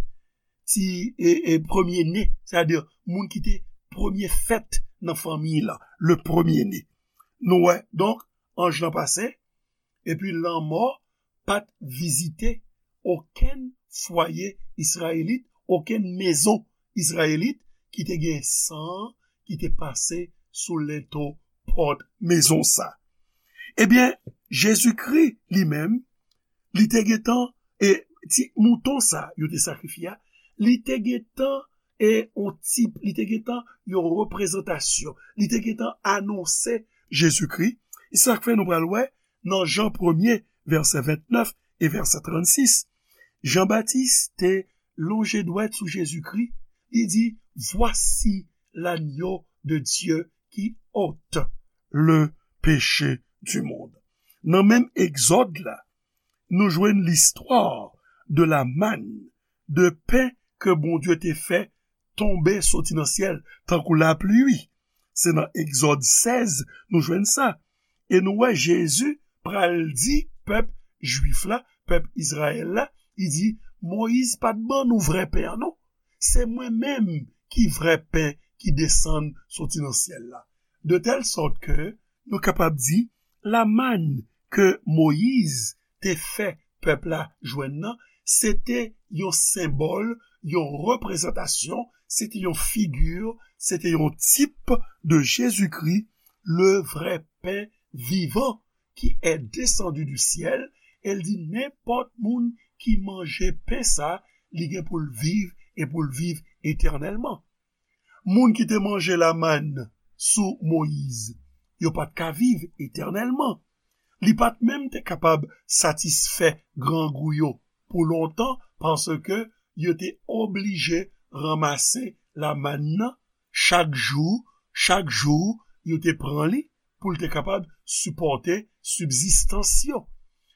ti e, e premye ne, sètadi moun ki te premye fèt nan fanmi la, le premye ne. Nou wè, donk, anj lan pase, epi lanmò pa t vizite okenn fwaye Izrayelit, okenn mezon Izrayelit ki te gen san ki te pase sou lento pòt mezon sa. Ebyen, Jezikri li menm, li te gentan, e ti mouton sa yo te sakrifye a, li te gentan e on tip, li te gentan yon reprezantasyon, li te gentan anonse Jezikri. E sa k fè nou pral wè nan Jan premye, vèsè vennèf e vèsè trannsis, Jan Batis te lonje dwèt sou Jezikri, li di, Voici l'agneau de Dieu qui ôte le péché du monde. Nan menm Egzòd la, nou jwenn listwa de la manne, de pen ke Bondye te fè tonbe soti nan syèl, tankou lapli. Se nan Egzòd sèz nou jwenn sa. E nou wè Jezi pral di pèp jwif la, pèp Izrayèl la, li di, Moyiz pa t ban nou vrè pen an non. Se mwen menm ki vrè pen ki desann soti nan syèl la. De tèl sòt ke nou kapab di, la manne ke Moyiz te fè pèp la jwenn nan, se te yon senbòl, yon reprezantasyon, se te yon figi, se te yon tip de Jezikri, le vrai pain vivant qui est descendu du ciel, e l di, nenpòt moun ki manje pen sa, li gen pou l viv e pou l viv etènèlman. Moun ki te manje lamann sou Moyiz, yo pa t ka viv etènèlman. Li pa t menm te kapab satisfè grangou yo pou lontan, paske yo te oblije ranmase lamann nan chak jou, chak jou, yo te pran li pou l te kapab sipòte sibzistans yo.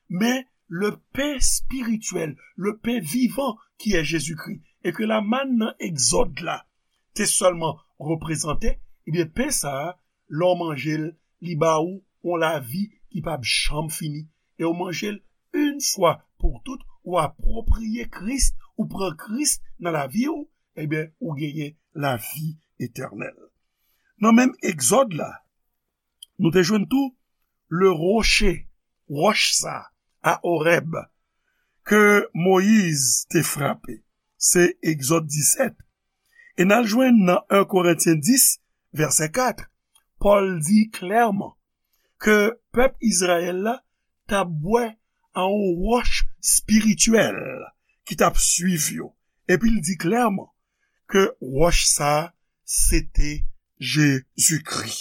Men le pen espirityèl, le pen vivan ki è Jezikri, e ke lamann nan Egzòd la te sèlman reprezante, ebyen, pen sa a, lè w manje l, li ba ou yon lavi ki p ap janm fini. E w manje l yon fwa pou tout, ou apwopriye Kris, ou pran Kris nan lavi w, ebyen, ou genyen lavi etènèl. Nan menm Egzòd la, nou te jwenn tou le rocher, wòch sa, a Orèb, ke Moyiz te frape. Se Egzòd disèt. E n al jwenn nan en Korentyen dis, vèsè kat, Pòl di klèman ke pèp Izrayèl la t ap bwè a yon wòch espirityèl ki t ap swiv yo. Epi l di klèman ke wòch sa a, se te Jezikri.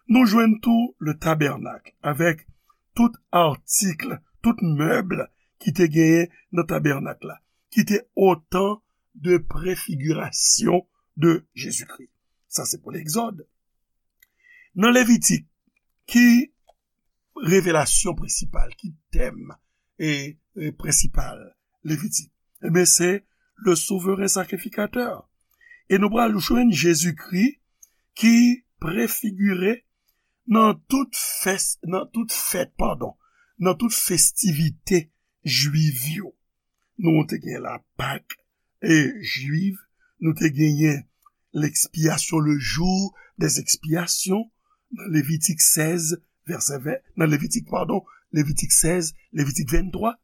Nou jwenn tou le tabènak avèk tout atik, tout mèb ki te genyen nan tabènak la, ki te otan de prefigirasyon de Jezikri. Sa se pou Legzòd. Nan Levitik, ki revelasyon prensipal, ki tèm e, e prensipal Levitik? Ebyen, se le souveren sakrifikatè. E nou pral jwenn Jezikri ki prefigire nan tout fès, nan tout fèt, padon, nan tout festivite jwiv yo. Nou te gen la Pak e jwiv, nou te genyen l'expiation, le jour des expiations, nan Levitik sèz, vèsè ven, nan Levitik, padon, Levitik sèz, Levitik venntwa.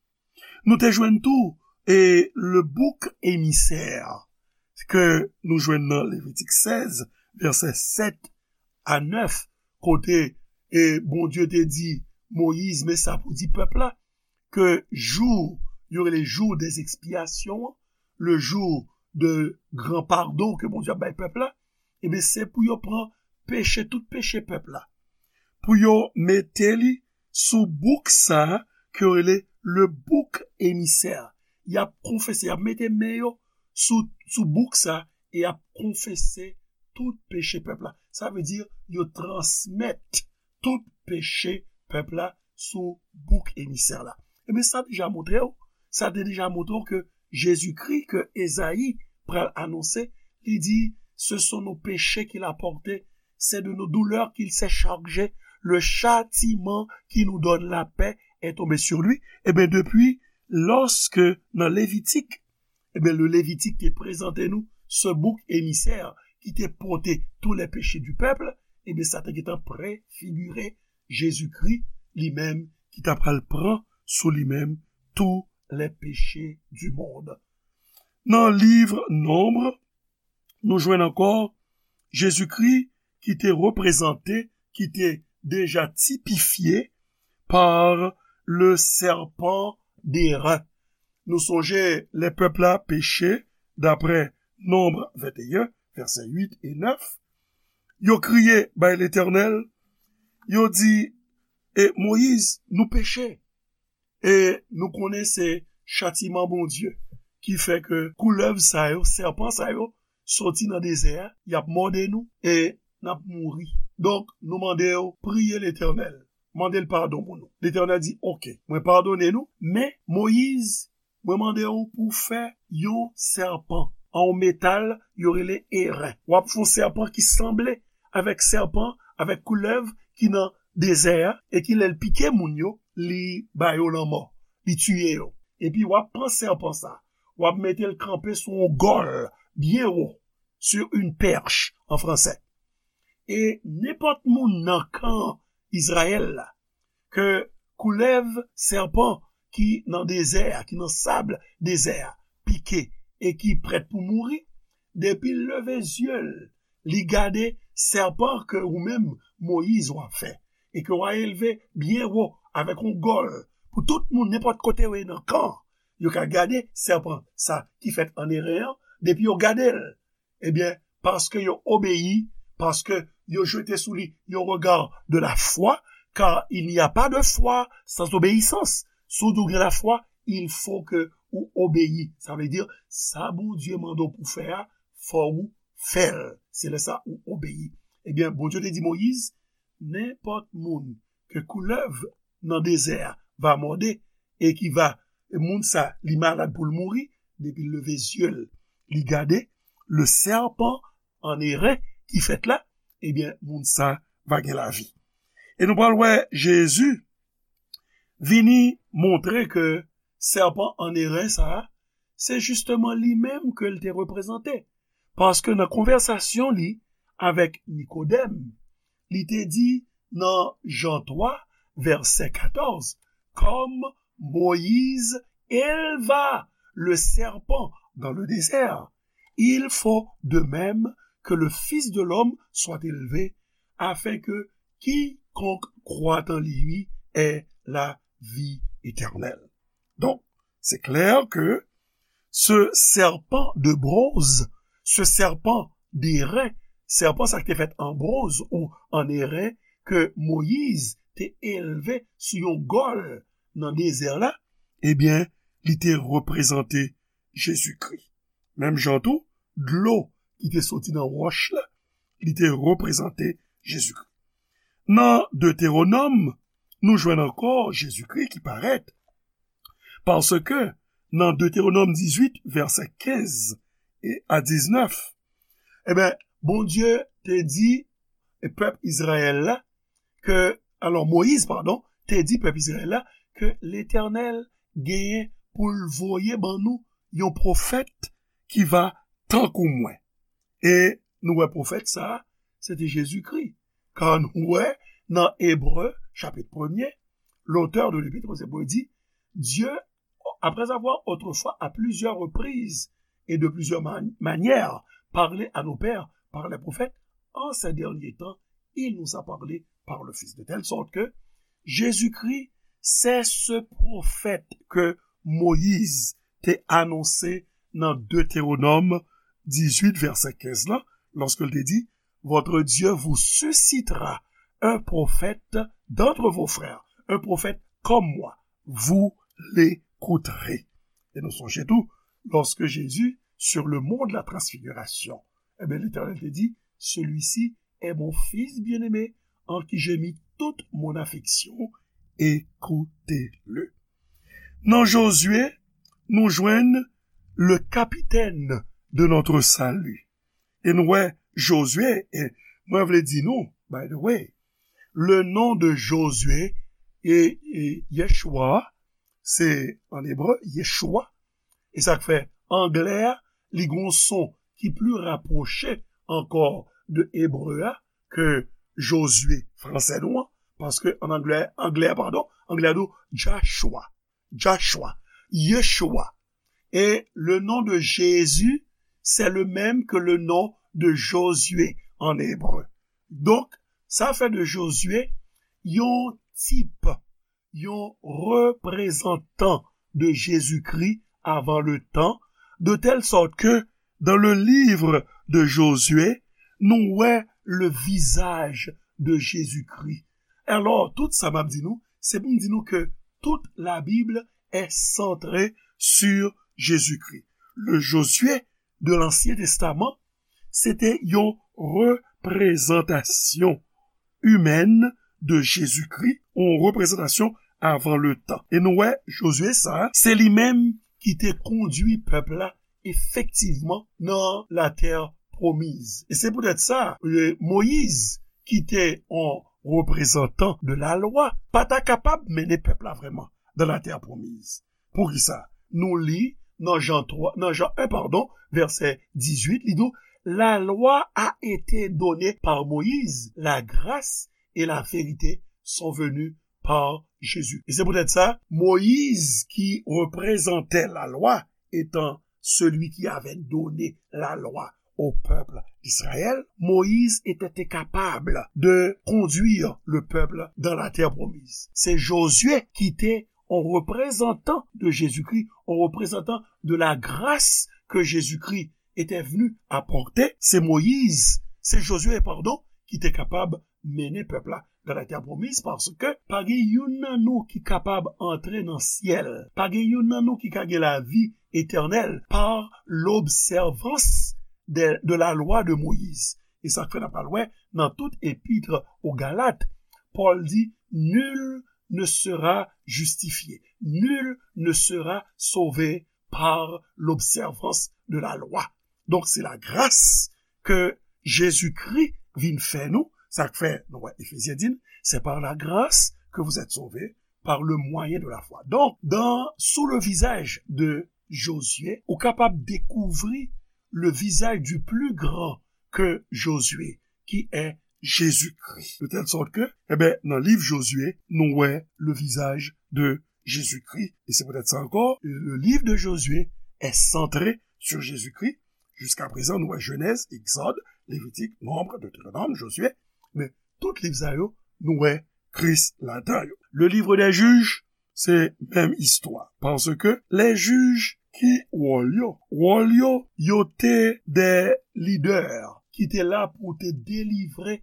Nou te jwenn tou e le bouc émissaire ke nou jwenn nan Levitik sèz, vèsè sèt a nèf, kote e Bondye te di Moyiz, men sa pou di pèp la, ke jou, yo rele jou des expiations, le jour de gran padon ke Bondye ap bay pèp la, ebyen, se pou yo pran peche, tout peche pèp la, pou yo mete li sou bouk sa a ke yo rele le bouc émissaire. Y ap konfese, y ap mete men yo sou, sou bouk sa a e y ap konfese tout peche pèp la. Sa vle di, yo transmèt tout peche pèp la sou bouk emisè la. Ebyen, sa deja montre w, sa te deja montre w ke Jezikri ke Ezayi pral anonse, li di, ce sont nos péchés qu'il a portés, c'est de nos douleurs qu'il s'est chargé, le châtiment qui nous donne la paix est tombé sur lui. Ebyen, depi lòske nan Levitik, ebyen, le Levitik te prezante nou ce bouc émissaire ki te pote tous les péchés du peuple, ebyen, sa te gentan prefigire Jezikri li menm ki ta pral pran sou li menm tous les péchés du monde. Nan liv Nonb, nou jwenn ankò Jezikri ki te reprezante, ki te deja tipifye par le serpent d'airain. Nou sonje lè pèp la peche, daprè Nonb venteyen, vèsè uit e nèf, yo kriye bay Letènèl, yo di, e Moyiz, nou peche. E nou konnen se chatiman Bondye ki fè ke koulèv sa yo, sèpan sa yo, soti nan dezè a, y ap mòde nou e n ap mouri. Donk, nou mande w priye Letènèl, mande l padon pou nou. Letènèl di, oke, mwen padone nou, men Moyiz, mwen mande w pou w fè yon sèpan an yon metal yo rele eren. W ap fè yon sèpan ki sanble avèk sèpan, avèk koulèv ki nan dezè a, e ki lè l pike moun yo, li ba yo lanmò, li tiye yo. Epi w ap pran sèpan sa, w ap mete l kanpe sou yon gòl byen wo, sur une perche en français. E nenpòt moun nan kan Izrayèl la, ke koulèv, sèpan ki nan dezè a, ki nan sab dezè a, pike e ki prèt pou mouri, depi l leve zye l, li gade sèpan ke ou menm, Moyiz, w ap fè, e ke w a elve byen wo avèk yon gòl pou tout moun, nenpòt kote yo ye nan kan, yo ka gade sèpan sa ki fèt an eren an, depi yo gade l, ebyen, paske yo obeyi, paske yo jete sou li yon regard de la foi, car il n'y a pas de foi sans obéissance. Si w di w gen lafwa, il faut que ou obeyi. Sa vle di, sa Bondye mande w pou fè a, fò ou fè l. Se lè sa ou obeyi. Ebyen, Bondye te di Moyiz, nenpòt moun ke koulèv nan dezè a va mòde e ki va, e moun sa, li malad pou l mouri, depi l leve zye l, li gade le serpent en eren ki fèt la, ebyen, moun sa va gen lavi. E nou pral wè Jezi vini montre ke sèpan an eren sa a, se jisteman li menm ke l te reprezante. Paske nan konvèsasyon li avèk Nikodèm, li te di nan Jan twa, vèsè katòz, comme Moïse éleva le serpent dans le désert, il faut de même que le Fils de l'homme soit élevé, afin que quiconque croit en lui ait la vie éternelle. Donc, c'est clair que ce serpent de bronze, ce serpent d'airain, sèpan sa ki te fèt an bronz ou an eren, ke Moyiz te elve sou yon gòl nan dezè la, ebyen, li te reprezante Jezikri. Menm jan tou, dlo ki te soti nan wòch la, li te reprezante Jezikri. Nan Detewonòm, nou jwenn ankò Jezikri ki parèt. Paske nan Detewonòm dizuit, vèsè kenz e a diznèf, ebyen, Bondye te di pèp Izrayèl la ke, alò, Moyiz, padon, te di pèp Izrayèl la ke Letènèl genyen pou l voye ban nou yon pwofèt ki va tankou mwen. E nou wè pwofèt sa a, se te Jezikri. Kan nou wè nan Ebre, chapit premye, l'auteur de l'Épître aux Hébreux dit, Dieu, après avoir autrefois à plusieurs reprises et de plusieurs man- manières parlé à nos pères par les prophètes, en ces derniers temps, il nous a parlé par le Fils. De telle sorte que Jésus-Christ, c'est ce prophète que Moïse te anonse nan Detewonòm dizuit, vèsè kenz la, lorsque il te dit, Votre Dieu vous suscitera un prophète d'entre vos frères, un prophète comme moi, vous l'écouterez. E nou sonje tou, lorsque Jésus, sur le mont de la transfiguration, eh bien, l'Éternel te dit, Celui-ci est mon fils bien-aimé, en qui j'ai mis toute mon affection, écoutez-le. Nan Jozye, nou jwenn le capitaine de notre salut. E nou wè Jozye, e mwen vle di nou, by the way, le nom de Jozye e, e Yeshua, se an ebre, Yeshua. E sa k fè anglè a, li gon son ki pli rapwoche ankò de ebre a ke Jozye fransè nou an, paske an anglè, anglè, padon, anglè a di w Joshua, Joshua, Yeshua. Et le nom de Jésus, c'est le même que le nom de Josué en hébreu. Donk, sa fè de Jozye yon tip, yon reprezantan de Jezikri avan le tan, de tèl sòt ke dans le livre de Josué, nou wè le visage de Jésus-Christ. Alò, tout sa m ap di nou, se pou m di nou ke tout la Bible est centrée sur Jésus-Christ. Le Josué de l'Ancien Testament, se te yon reprezantasyon imèn de Jezikri, yon reprezantasyon avan le tan. E nou wè, Jozye sa, se li menm ki te kondui pèp la efektivman nan latè pwomiz. E se poutèt sa, e, Moyiz, ki te yon reprezantan de la lwa, pa ta kapab mennen pèp la vrèman nan latè pwomiz. Poukisa? Nou li nan Jan twa, nan Jan en, padon, vèsè dizuit, li di w, La loi a été donnée par Moïse, la grâce et la vérité sont venues par Jésus. E se poutèt sa, Moyiz ki reprezante lalwa, etan celui qui avait donné la loi au peuple d'Israël, Moïse était capable de conduire le peuple dans la terre promise. Se Jozye ki te yon reprezantan de Jezikri, yon reprezantan de la grâce que Jésus-Christ était venu apporter. Se Moyiz, se Jozye, padon, ki te kapab mennen pèp la nan latè pwomiz, paske pa gen youn nan nou ki kapab antre nan syèl. Pa gen youn nan nou ki ka gen lavi etènèl par l'observance de, de la loi de Moïse. E sa k fè n ap pral wè nan tout epit o Galat, Pòl di, Nul ne sera justifié, nul ne sera sauvé par l'observance de la loi. Donk, se lagras ke Jezikri vin fè nou. Sa k fè, nou wè, Efezyen di n, c'est par la grâce que vous êtes sauvés par le moyen de la foi. Donk, dans, sous le visage de Josué, ou kapab dekouvri le visage du plus grand que Josué, qui est Jésus-Christ. De telle sorte que, eh ben, nan liv Jozye, nou wè le visage de Jésus-Christ. E se poutèt sa ankò, le livre de Josué est centré sur Jésus-Christ. Jiska prezan, nou wè Jenèz, Egzòd, Levitik, Nonb, Detewonòm, Jozye. Men tout liv sa yo, nou wè Kris ladan yo. Le livre des Juges, se menm istwa. Paske lè jij ki wòl yo, wòl yo, yo te de lidè ki te la pou te delivre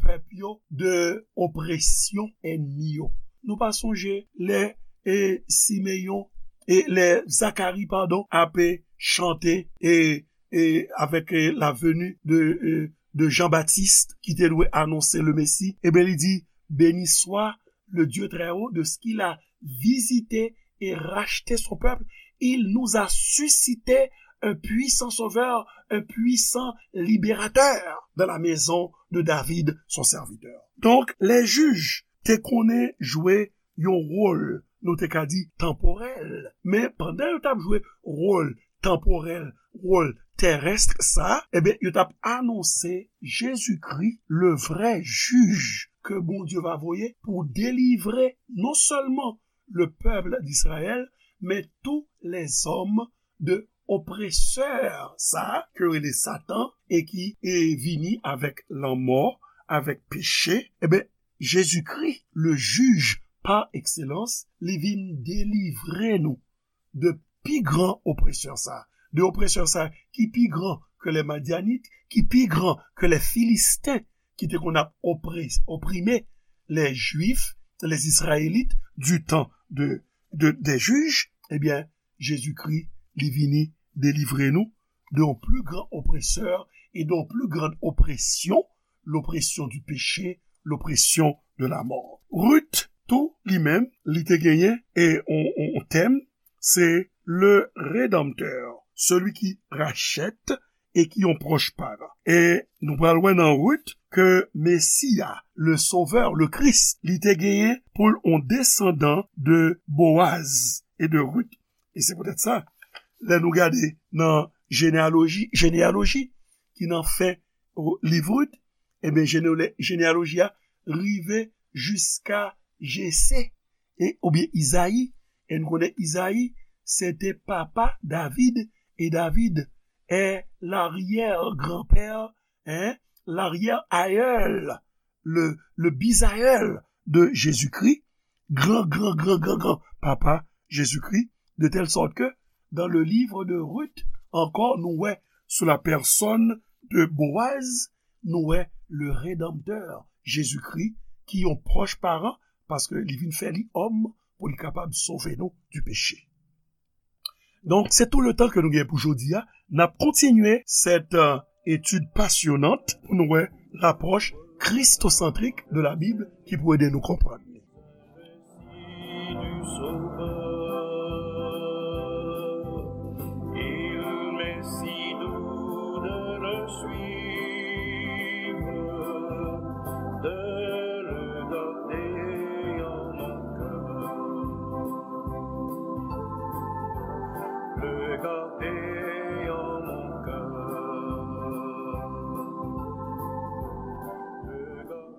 pèp yo de opresyon ènmi yo. Nou pa sonje lè, e, Simeyon, e lè Zakari, padon, ape chante, e, e avèk, e, la venue de, e, de Jean-Baptiste ki te dwe anonse le Messie, e ben li di, Béni soit le Dieu très haut, de ce qu'il a visité et racheté son peuple. Il nous a suscité un puissant sauveur, un puissant libérateur dans la maison de David, son serviteur. Donk, lè jij te konnen jwe yon wòl, nou te ka di, tanporèl. Men pandan yo t ap jwe wòl tanporèl, wòl terès sa, ebyen, yo t ap anonse Jezikri, le vrè jij ke Bondye va voye pou delivre non sèlman le peuple d'Israël, men tous les hommes de opresè sa ke yo rele Satan e ki e vini avèk lanmò, avèk peche, ebyen, Jezikri, le jij pa ekselans, li vin delivre nou de pi gran opresè sa, de opresè sa ki pi gran ke lè Madyanit, ki pi gran ke lè Filisten, ki te konn ap opre-, oprime lè Jwif, lè Izrayelit, du tan de, de, dè jij, ebyen, Jezikri, li vini delivre nou de yon pli gran opresè e de yon pli gran opresyon, l'oppression du péché, l'oppression de la mort. Ruth, tou, li menm, li te genyen e on, on, on tèm, se le Rédempteur, celui qui rachète e ki yon pwòch paran. E nou pral wè nan Ruth ke Mesi a, le Sauveur, le Christ, li te genyen pou l on desandan de Boaz e de Ruth. E se poutèt sa, lè nou gade nan jeneyaloji, jeneyaloji ki nan fen, o, liv Ruth, ebyen, jeneyale-, jeneyaloji a rive jiska Jese, e, oubyen Izayi. E nou konnen Izayi, se te papa David, e David est l'arrière-grand-père, hein, l'arrière-aïeul, le, le bisaïeul de Jésus-Christ, gran, gran, gran, gran, gran papa Jezikri, de telle sorte que dans le livre de Ruth, encore, nous ouais, sous la personne de Boaz, nous ouais, le Rédempteur, Jésus-Christ, ki yon pwòch paran, paske li vin fè li òm pou li kapab sove nou du péché. Donk, se tout le tan ke nou gen pou jodi a. N ap kontinye cette, euh, étude passionnante pou nou wè lapwòch kristosantrik de la Bible ki pou ede nou konprann li. Il m'est si doux de le suivre, de le garder en mon cœur, le garder en mon cœur, le garder.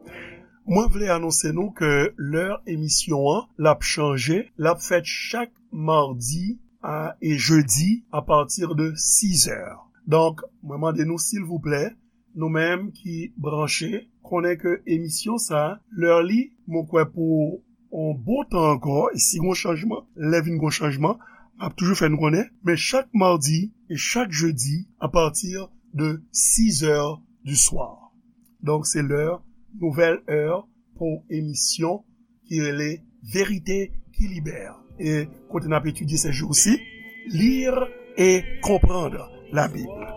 Mwen vle anonse nou ke lè emisyon an, l ap chanje, l ap fèt chak madi a, e jedi apati de sizè. Donk, mwen mande nou, silvouplè, nou menm ki branche, konnen ke emisyon sa, lè li, mwen kwè pou yon bon tan ankò, e si gon chanjman, lè vin gon chanjman, m ap toujou fè nou konnen, men chak madi e chak jedi, apati de sizè du soir. Donk, se lè, nouvèl è pou emisyon ki rele Vérité qui libère. E kote n ap etidye ces jours-ci, lire et comprendre la Bible.